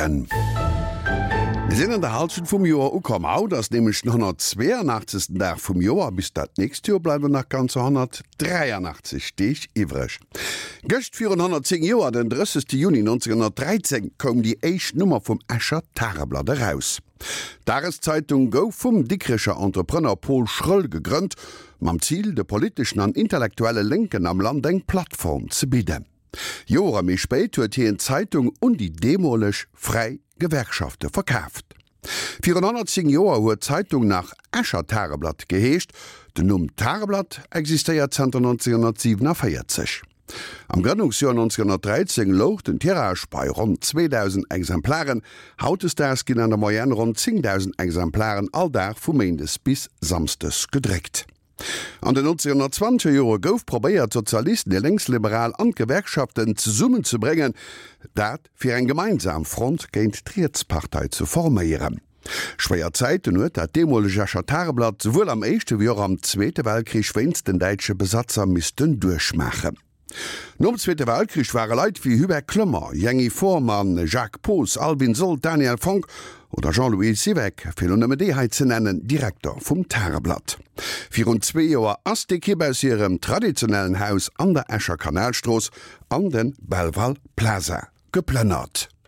Mueren. Mir sinn an der Halschent vum Joer ukomm. Haut ass nämlech den 182. Dag vum Joer. Bis dat nächst Joer bleiwen nach ganzer 183 Deeg iwwreg. Gëscht virun 110 Joer, den 30. Juni 1913, koum déi éischt Nummer vum Escher Tageblatt eraus. D'Dageszeitung gouf vum Dikrecher Entrepreneur Paul Schröll gegrënnt, mam Zil, de politeschen an intellektuelle Lénken am Land eng Plattform ze bidden. Jore méi spéit huet hien d'Zeitung un déi deemoleg fräi Gewerkschafte verkaaft. Virun 110 Joer huet d'Zeitung nach Escher Tageblatt geheescht, den Numm Tageblatt existéiert zanter 1947. Am Grënnungsjoer 1913 louch den Tirage bei ronn 2.000 Exemplaren, hautdesdaags ginn an der Moyenne ronn 10.000 Exemplaren all Dag vu méindes bis samsdes gedréckt. An den 1920er Jore gouf probéiert, d'Sozialisten, déi Lénksliberal an d'Gewerkschaften zesummenzebréngen, dat fir eng gemeinsam Front géint d'Rietspartei ze forméieren. Schwéier Zäiten huet dat deemoleg Escher Tageblatt souwuel am Éischte wéi och am Zweete Weltkrich wéinst den däitsche Besatzer missten duerchmaachen. Nom Zweete Weltkrich ware Leit wéi Hubert Clement, Jängi Fohrmann, Jacques Poos, Alvin Sold, Daniel Fonck oder Jean-Louis Siweck, fir elo nëmme déi hei ze nennen, Direkter vum Tageblatt. Virun zwee Joer ass d'Ekipp aus hirem traditionellen Haus an der Escher Kanalstrooss an de Belval Plaza geplënnert.